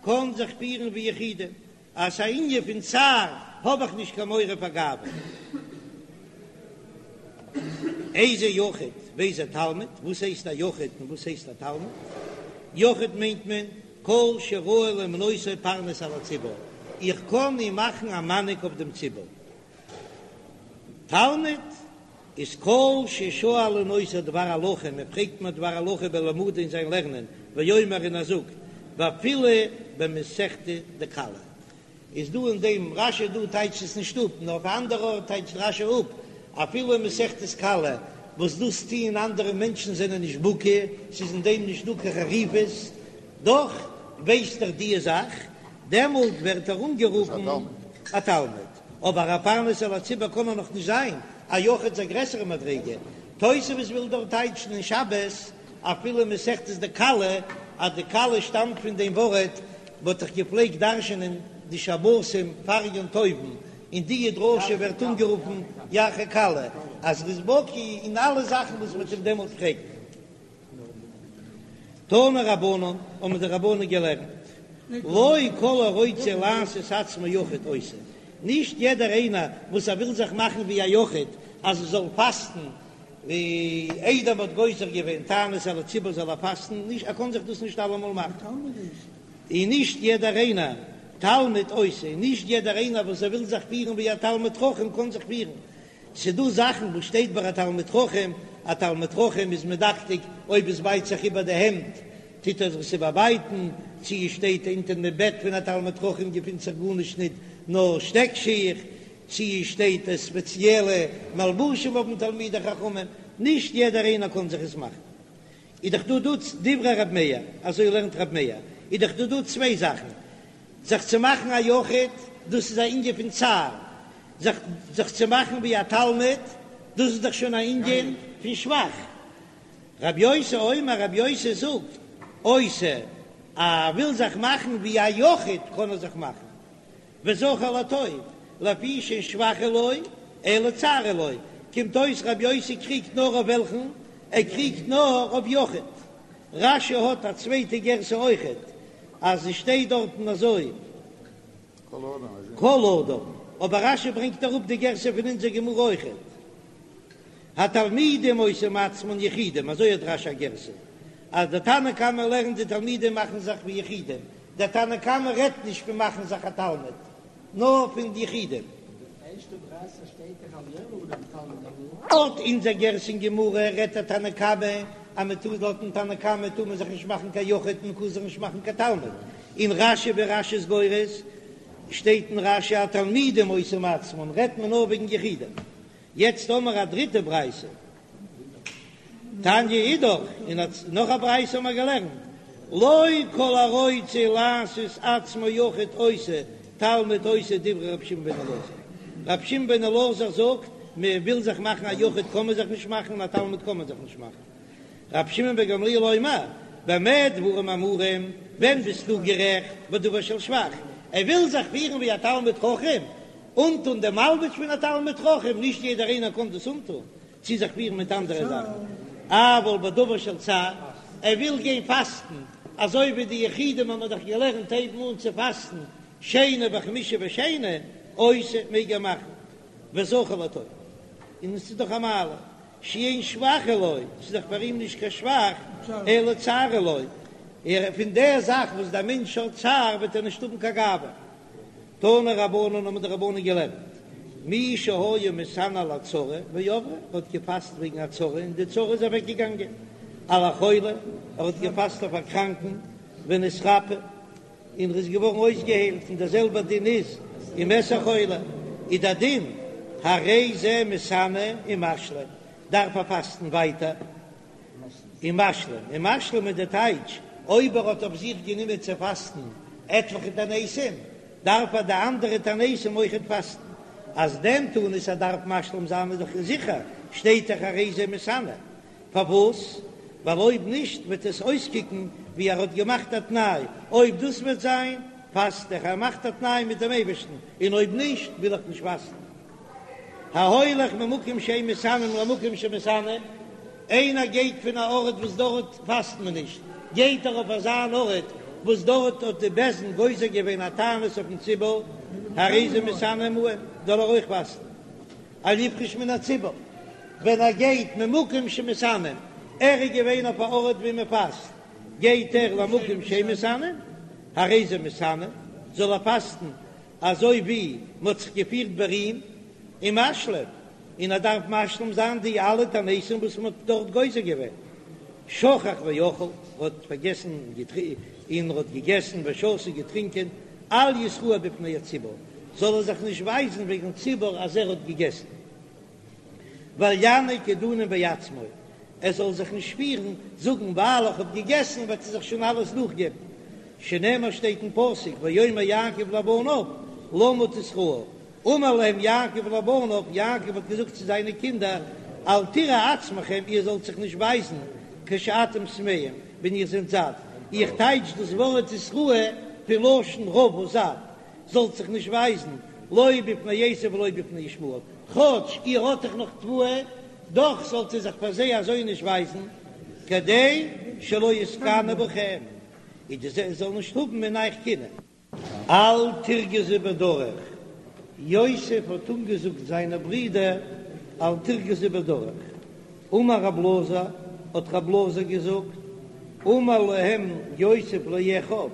קען זיך פירן ווי יחידים, אז ס'איז א ענין פון צער האב איך נישט קיין מורא פאר גאווה. איזה יחיד ואיזה תלמיד, וואס הייסט א יחיד און וואס הייסט א תלמיד? יחיד מיינט מען כל שראוי למנותו פרנס על הציבור, איך קען אים מאכן א מנהיג אויף דעם ציבור. תלמיד איז כל ששואלין אותו דבר הלכה, מען פרעגט אים א דבר הלכה בלמודו אין זיין לערנען, ואומר און ער זאגט, ואפילו במסכתא דכלה. איז דא אין דעם רש"י דא טייטשט עס נישט אפ, נאר אויף א אנדערע ארט טייטשט רש"י אפ, אפילו אין מסכת כלה, וואס דאס טוען אנדערע מענטשן זענען נישט בקי, ס'איז אין דעם נישט דא קיין חריפות, דאך. ווייסט ער די זאך, דעמאלט ווערט ער אנגערופן א תלמיד, אבער א פרנס על הציבור קען ער נאך נישט זיין, א יחיד איז א גרעסערע מדריגה. תוספות וויל דארט טייטשן אין שבת אפילו מסכת דכלה אז די כלה שטאמט פון דעם ווארט מ'האט דאך געפלעגט דרש'ענען די שבתים פאר יום טוב'ן, און די דרשה ווערט אנגערופן ירחי כלה, אז ר'איז בקי אין אלע זאכן וואס מ'וועט אים דעמאלט פרעגן. תנו רבנן, האבן די רבנן געלערנט, לא כל הרוצה לעשות עצמו יחיד עושה, נישט יעדער איינער וואס ער וויל זיך מאכן ווי א יחיד אז ער זאל פאסטן ווי איידער מ'האט גוזר געווען תענית על הציבור זאל ער פאסטן, נישט ער קען זיך דאס נישט אלעמאל מאכן, און נישט יעדער איינער תלמיד עושה, און נישט יעדער איינער וואס ער וויל זיך פירן ווי א תלמיד חכם קען זיך פירן, ס'דא זאכן וואס שטייט ביי א תלמיד חכם, א תלמיד חכם איז מדקדק אויב עס בייט זיך איבער די העמד טוט ער זיך עס איבערבייטן, צו עס שטייט אונטער דעם בעט פון א תלמיד חכם געפינט זיך גארנישט ניט נאר שטעק שיך, צו עס שטייט ספעציעלע מלבושים האבן תלמידי חכמים, נישט יעדער איינער קען זיך עס מאכן. איז דאך דא דא דברי רב מאיר, אזוי לערנט רב מאיר, איז דאך דא דא צוויי זאכן, זיך צו מאכן א יחיד, דאס איז א ענין פון צער, זיך זיך צו מאכן ווי א תלמיד, דאס איז דאך שוין א ענין פון שבח. רב יוסי אומר, רב יוסי זאגט, עושה, ער וויל זיך מאכן ווי א יחיד קען ער זיך מאכן, וזכור לטוב, לפי שאין שבח הוא לו, אלא צער הוא לו, קומט אויס רב יוסי קריגט נאר אויף וועלכן? ער קריגט נאר אויף יחיד. רש"י האט א צווייטע גירסא אויכעט, אז עס שטייט דארטן אזוי כל אדם, אבער רש"י ברענגט אראפ די גירסא פון אונזער גמרא אויכעט, התלמידים עושים עצמן יחידים, אזוי האט רש"י א גירסא, אז דער תנא קמא לערנט די תלמידים מאכן זיך ווי יחידים, דער תנא קמא רעדט נישט פון מאכן זיך א תלמיד, נאר פון די יחידים. לויט אונזער גירסא אין גמרא רעדט דער תנא קמא אז מען טאר לויטן תנא קמא טאר מען זיך נישט מאכן קיין יחיד מען קען זיך נישט מאכן קיין תלמיד, אין רש"י ווי רש"י איז גורס שטייט אין רש"י התלמידים עושים עצמן רעדט מען נאר וועגן יחידים. יעצט האמער א דריטע ברייתא. תניא אידך, און נאך א ברייתא האבן מיר געלערנט, לא כל הרוצה לעשות עצמו יחיד עושה, תלמיד עושה דברי רבי שמעון בן אלעזר. רבי שמעון בן אלעזר זאגט, מען וויל זיך מאכן א יחיד קען מען זיך נישט מאכן, און א תלמיד קען מען זיך נישט מאכן. רבי שמעון בן גמליאל אומר, במה דברים אמורים, ווען ביסטו גערעכט בדבר של שבח, ער וויל זיך פירן ווי א תלמיד חכם, אנטון דעם מלבוש פון א תלמיד חכם, נישט יעדער איינער קען דאס אנטון, צו זיך פירן מיט אנדערע זאכן, אבל בדבר של צער, ער וויל גיין פאסטן, אזוי ווי די יחידים האבן דאך געלערנט הייבן אן צו פאסטן שני וחמישי ושני, עושה מעג ער מאכן, וזכור לטוב, און עס איז דאך א מעלה, שאין שבח הוא לו, ס'איז דאך פאר אים נישט קיין שבח, אלא צער הוא לו, פון דער זאך וואס דער מענטש האט צער וועט ער נישט האבן קיין גאווה. תנו רבנן האבן די רבנן געלערנט, מי שהיה מתענה על הצרה ועברה, ער האט געפאסט וועגן א צרה און די צרה איז אוועק געגאנגען, על החולה, ער האט געפאסט אויף א קראנקן, ונתרפא, און ער איז געווארן אויסגעהיילט, און דער זעלבער דין איז ומת החולה, איז דער דין, הרי זה מתענה ומשלים, דארף ער פאסטן ווייטער. ומשלים, ומשלים איז די טייטש, אויב ער האט אויף זיך גענומען צו פאסטן עטליכע תעניתים, דארף ער די אנדערע תעניתים אויכעט פאסטן. אז דעם תענית ער דארף משלים זיין איז דאך זיכער, שטייט דאך הרי זה מתענה. פארוואס? ווייל אויב נישט וועט עס אויסקוקן ווי ער האט געמאכט א תנאי, אויב דאס וועט זיין, פאסט איך, ער מאכט א תנאי מיט דעם אייבערשטן, און אויב נישט וויל איך נישט פאסטן. ההולך ממקום שאין מתענין למקום שמתענין, איינער גייט פון א ארט וואס דארט פאסט מען נישט, גייט ער אויף אזא אן ארט וואס דארט האט די בית דין גוזר געווען א תענית אויפן ציבור, הרי זה מתענה עמהם, זאל ער אויך פאסטן, אל יפרוש מן הציבור, ווען ער גייט ממקום שמתענין, ער איז געווען אויף א ארט ווי מען פאסט, גייט ער למקום שאין מתענין, הרי זה מתענה, זאל ער פאסטן אזוי ווי מ'האט זיך געפירט ביי אים ומשלים, און ער דארף משלים זיין די אלע תעניתים וואס מ'האט דארט גוזר געווען. שכח ואכל, ער האט פארגעסן און ער האט געגעסן ושתה געטרינקען, אל יתראה בפני הציבור, זאל ער זיך נישט ווייזן וועגן ציבור אז ער האט געגעסן. ואל ינהיג עידונין בעצמו, ער זאל זיך נישט פירן, זאגן ווייל איך האב געגעסן וועט ער זיך שוין אלעס נאכגעבן. שנאמר שטייט אין פסוק ויאמר יעקב לבניו למה תתראו, אמר להם יעקב לבניו, יעקב האט געזאגט צו זיינע קינדער, אל תראו עצמכם, איר זאלט זיך נישט ווייזן, כשאתם שבעים, ווען איר זענט זאט, איך טייטש דאס ווארט תתראו פון לשון רעבה זאט, זאלט זיך נישט ווייזן, לא בפני עשו ולא בפני ישמעאל, כאטש איר האט דאך נאך תבואה, דאך זאלט איר זיך פאר זיי אזוי נישט ווייזן, כדי שלא יתקנאו בכם, כדי זיי זאלן נישט האבן אין אייך קנאה. אל תרגזו בדרך, יוסף האט אנגעזאגט זיינע ברידער אל תרגזו בדרך, אמר רב אלעזר, האט רב אלעזר געזאגט, אמר להם יוסף לאחיו,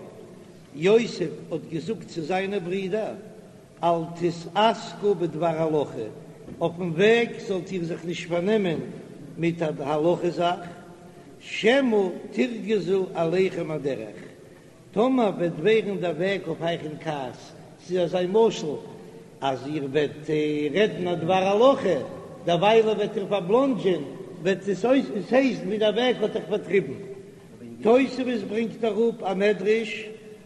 יוסף האט געזאגט צו זיינע ברידער, אל תתעסקו בדבר הלכה, אויפן וועג זאלט איר זיך נישט פארנעמען מיט א הלכה זאך, שמא תרגזו עליכם הדרך, טאמער וועט ווערן דער וועג אויף אייך אין כעס, ס'איז אזא משל אז איר וועט רעדן א דבר הלכה, דערוויילע וועט איר פארבלאנדזשען, וועט עס אויס, עס הייסט ווי דער וועג האט אייך פארטריבן. תוספות ברענגט אראפ א מדרש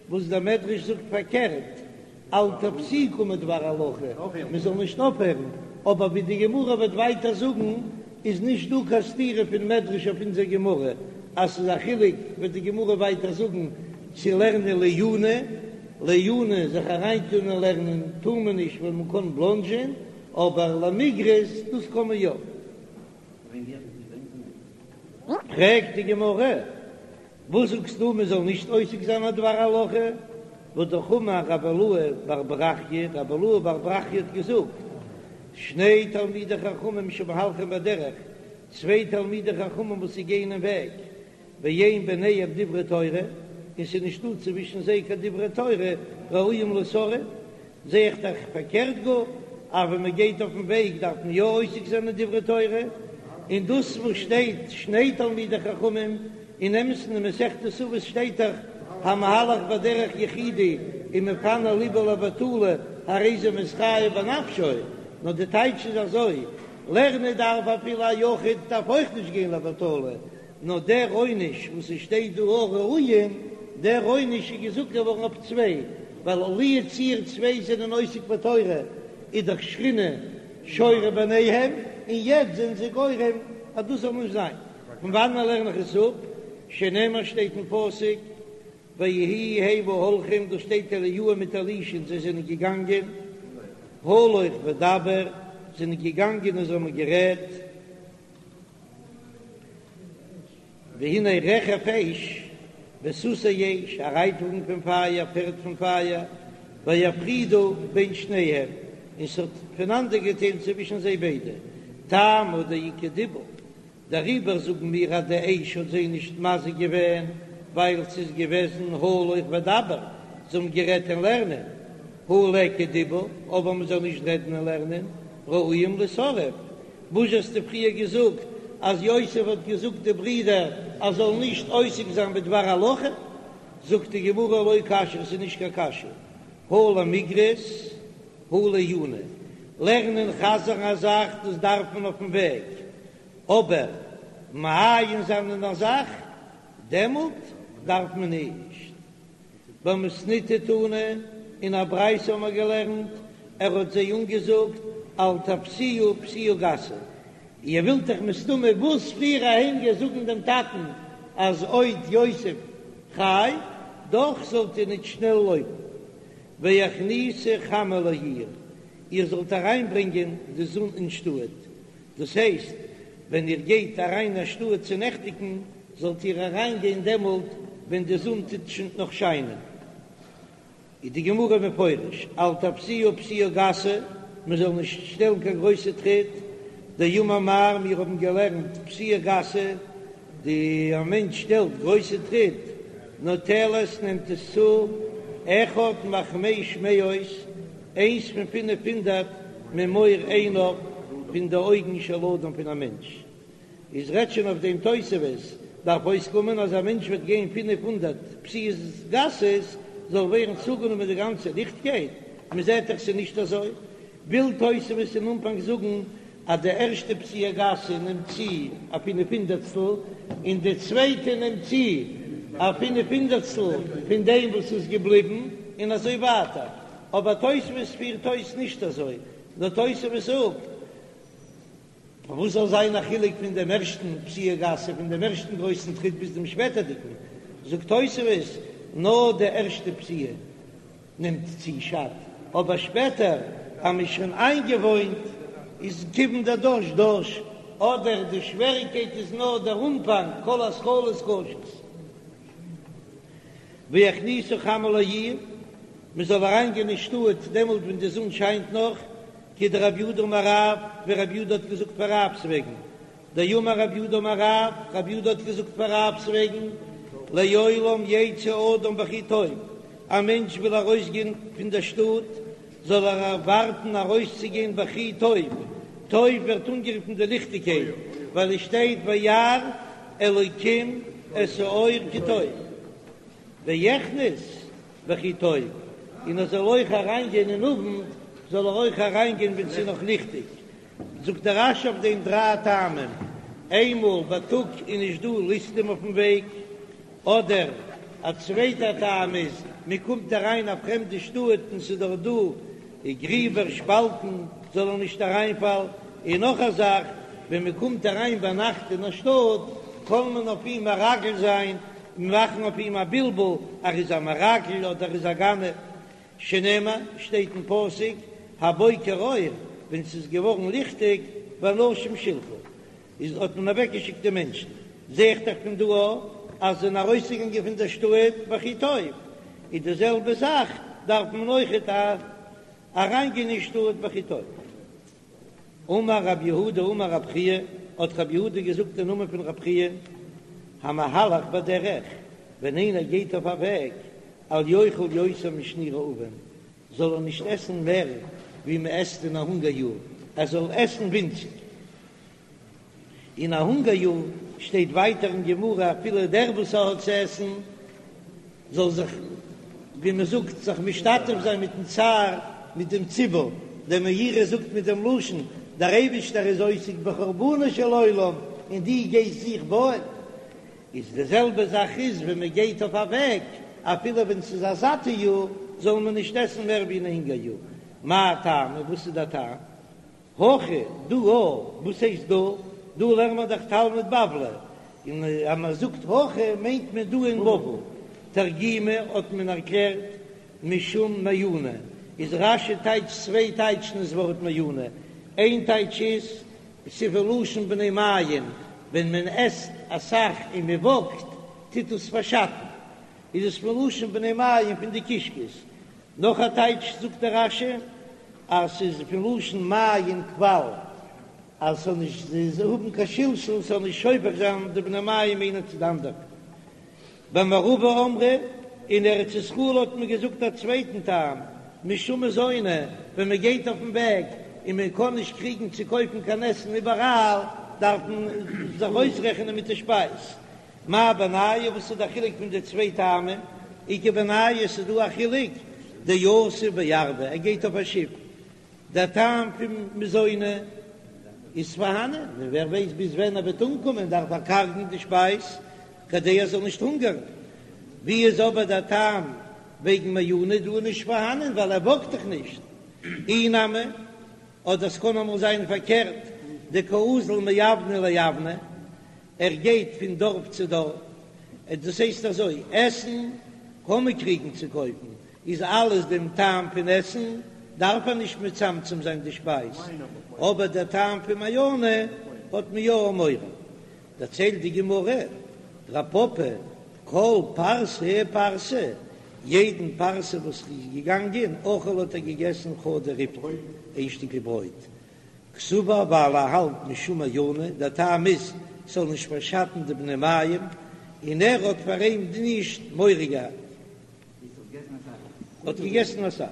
וואס דער מדרש זאגט פארקערט, אל תפסיקו מדבר הלכה, מען זאל נישט אויפהערן, אבער ווי די גמרא וועט ווייטער זאגן איז נישט דא קיין סתירה פון מדרש אויף אונזער גמרא, אז ס'איז א חילוק וועט די גמרא ווייטער זאגן צו לערנען לעיוני, לעיוני זיך אריינטון אין לערנען טאר מען נישט ווייל מען קען בלאנדזשען, אבער למיגרס דאס קען מען יא. פרעגט די גמרא, וואס זאגסטו מען זאל נישט עוסק זיין א דבר הלכה? והא אמר רבי אילעא בר ברכיה, רבי אילעא בר ברכיה האט געזאגט, שני תלמידי חכמים שמהלכים בדרך, צוויי תלמידי חכמים וואס זיי גייען אין וועג, ואין ביניהם דברי תורה, און ס'איז נישטא צווישן זיי קיין דברי תורה, ראויים לישרף, זע איך דאך פארקערט גאר, אז ווען מען גייט אויפן וועג דארף מען יא עוסק זיין אין דברי תורה, און דאס וואס שטייט שני תלמידי חכמים, אין אמת'ן אין מסכת אבות שטייט דאך המהלך בדרך יחידי ומפנה לבו לבטלה הרי זה מתחייב בנפשו, נאר די טייטש איז אזוי, לערנען דארף אפילו א יחיד דארף אויך נישט גיין לבטלה, נאר דער עונש וואס עס שטייט דא ראויים, דער עונש איז געזאגט געווארן אויף צוויי, ווייל לו יצוייר צוויי זענען עוסק בתורה איז דאך שכינה שורה ביניהם, און יעצט זענען זיי גורם אז דאס זאל נישט זיין. פון וואנען לערן איך עס אפ? שנאמר שטייט אין פסוק ויהי המה הולכים, דא שטייט אליהו מיט אלישע'ן זיי זענען געגאנגען, הלוך ודבר, זענען געגאנגען און זיי האבן גערעדט, והנה רכב אש וסוסי אש, א רייטוואגן פון פייער, פערד פון פייער, ויפרידו בין שניהם, און ס'האט פונאנדערגעטיילט צווישן זיי ביידע, טעמא דאיכא דיבור, דעריבער זאגן מיר אז די אש האט זיי נישט מזיק געווען, ווייל ס'איז געוועזן הלוך ודבר, זיי האבן גערעדט אין לערנען, הא ליכא דיבור, אבער מ'זאל נישט רעדן אין לערנען, ראויים לישרף, וואס האסטו פריער געזאגט אז יוסף האט געזאגט די ברידער אז זאלן נישט עוסק זיין בדבר הלכה? זאגט די גמרא לא קשיא, עס איז נישט קיין קשיא, הא למיגרס הא לעיוני, לערנען חזר'ן א זאך דאס דארף מען אויפן וועג, אבער מעיין זיין אין א זאך דעמאלט דארף מען נישט. במתניתא תנא, אין א ברייתא האבן מיר געלערנט, ער האט זיי אנגעזאגט, אל תפסיעו פסיעה גסה, איר ווילט דאך מסתמא וואס פריער אהיים גיין זאגן דעם טאטן אז עוד יוסף חי, דאך זאלט איר ניט שנעל לויפן, והכניסו חמה לעיר, איר זאלט אריינברענגען די זון אין שטאט, דאס הייסט, ווען איר גייט אריין אין שטאט צו נעכטיגן, זאלט איר אריינגיין דעמאלט ווען די זון טוט שוין נאך שיינען. איז די גמרא מפרש, אל תפסיעו פסיעה גסה, מען זאל נישט שטעלן קיין גרויסע טריט, דאמר מר, מיר האבן געלערנט פסיעה גסה, די א מענטש שטעלט גרויסע טריט, נוטלת נעמט עס צו, אחד מחמש מאות, איינס פון פינף הונדערט ממאור עיניו, פון די אויגן של אדם פון א מענטש. איז רעדט שוין אויף דעם תוספות, דארף אויסקומען אז א מענטש וועט גיין 500 פסיעות גסות זאל ווערן צוגענומען די גאנצע ליכטקייט, מען זעט דאך ס'איז נישט אזוי, וויל תוספות אין אנפאנג זאגן אז די ערשטע פסיעה גסה נעמט צו א פינף הונדערטסטל און די צווייטע נעמט צו. א פינף הונדערטסטל פון דעם וואס איז געבליבן, און אזוי ווייטער. אבער תוספות פירט אויס נישט אזוי, נאר תוספות זאגט, פארוואס זאל זיין א חילוק פון דעם ערשטן פסיעה גסה, פון דעם ערשטן גרויסן טריט ביז דעם שפעטערדיגן? זאגט תוספות, נאר די ערשטע פסיעה נעמט צו שאדט, אבער שפעטער אז מ'איז שוין איינגעוואוינט איז כיון דדש דש, אדער די שוועריקייט איז נאר דער אנפאנג, כל התחלות קשות. ויכניסו חמה לעיר, מ'זאל אריינגיין אין שטאט דעמאלט ווען די זון שיינט נאך, כדרב יהודה אמר רב, ווי רב יהודה האט געזאגט פאר רב'ס וועגן, דאמר רב יהודה אמר רב, רב יהודה האט געזאגט פאר רב'ס וועגן, לעולם יצא אדם בכי טוב, א מענטש וויל ארויסגיין פון דער שטאט, זאל ער ווארטן ארויסצוגיין בכי טוב, טוב ווערט אנגערופן די ליכטיגקייט, ווייל עס שטייט וירא אלוקים את האור כי טוב, ויכנס בכי טוב, און ער זאל אויך אריינגיין אין אוונט, זאל ער אויך אריינגיין ווען ס'איז נאך ליכטיג. זאגט דער רש"י אויף דעם דריי טעמים, איינמאל בייטאג איז נישט דא ליסטים אויפן וועג, אדער א צווייטער טעם איז מען קומט אריין א פרעמדע שטאט און ס'איז דארט דא גריבער שפאלטן זאל ער נישט אריינפאלן, און נאך א זאך ווען מען קומט אריין ביינאכט אין א שטאט קען מען אויף אים מרגל זיין און מאכן אויף אים א בלבול ער איז א מרגל אדער ער איז א גנב. שנאמר, שטייט אין פסוק, הבוקר אור, ווען ס'איז געווארן ליכטיג, ואנשים שלחה, איז האט מען אוועקגעשיקט די מענטשן, זע איך דאך פון דא אז זיי זענען ארויסגעגאנגען פון דער שטאט בכי טוב, איז די זעלבע זאך דארף מען אויכעט אריינגיין אין שטאט בכי טוב. אמר רב יהודה אמר רב חייא, האט רב יהודה געזאגט אין נאמען פון רב חייא, המהלך בדרך, ווען איינער גייט אויף א וועג, אל יאכל יותר משני רעבון, זאל ער נישט עסן מער ווי מען עסט אין א הונגער יאר, ער זאל עסן ווינציג. אין א הונגער יאר שטייט ווייטער אין גמרא אפילו דער וואס האט צו עסן זאל זיך ווי מען זאגט זיך משתתף זיין מיטן צער מיט דעם ציבור, דער מאירי זאגט מיט דעם לשון דער אייבישטער איז עוסק בחורבנו של עולם און דו גייסט זיך בויען, איז די זעלבע זאך איז ווען מען גייט אויף א וועג אפילו ווען ס'איז א זאטע יאר זאל מען נישט עסן מער ווי אין א הונגער יאר, מאי טעמא וואס איז דער טעם? הכא דא וואס הייסט דא? דא לערנט מען דאך תלמוד בבלי, און אז מען זאגט הכא מיינט מען דא אין בבל. תרגימו האט מען ערקלערט משום מעיינא, איז רש"י טייטשט צוויי טייטשן דאס ווארט מעיינא, איין טייטש איז ס'איז פון לשון בני מעיים, ווען מען עסט אסאך און מען וואקט טוט עס פארשאטן, איז עס פון לשון בני מעיים פון די קישקעס, נאך א טייטש זאגט דער רש"י אז ס'איז פון לשון מעיין קוואל אז ס'זאל נישט האבן קיין שלשול, ס'זאל נישט שופך זיין די בני מעיים איינער צו די אנדערע. במערבא אמרי, אין ארץ ישראל האט מען געזאגט א צווייטן טעם, משום מזוני, ווען מען גייט אויפן וועג און מען קען נישט קריגן צו קויפן קיין עסן איבעראל, דארף מען זיך אויסרעכענען מיט די שפייז. מאי בינייהו, וואס איז דער חילוק פון די צוויי טעמים? איכא בינייהו, ס'איז דא א חילוק, דיתיב בארבא, ער גייט אויף א שיף, דער טעם פון מזוני איז פארהאנען, און ווער ווייסט ביז ווען ער וועט אנקומען, דארף ער קארגן די שפייז כדי ער זאל נישט הונגערן. ווי איז אבער דער טעם וועגן מעיינא דא נישט פארהאנען, ווייל ער וואקט דאך נישט. אי נמי, אדער ס'קען אמאל זיין פארקערט, דקאזיל מאוונא לאוונא, ער גייט פון דארף צו דארף, דאס הייסט אזוי, עסן קען מען קריגן צו קויפן, איז אלעס דעם טעם פון עסן דארף ער נישט מצמצם זיין די שפייז, אבער דער טעם פון מעיינא האט מען יא מורא. דערציילט די גמרא, רב פפא, כל פרסה ופרסה, יעדן פרסה וואס איז געגאנגען, אכל האט ער געגעסן חדא ריפתא, איין שטיקל ברויט, קסבר ווייל ער האלט משום מעיינא, דער טעם איז ס'זאל נישט פארשאטן די בני מעיים, און ער האט פאר אים נישט מורא געהאט. האט געגעסן אסאך.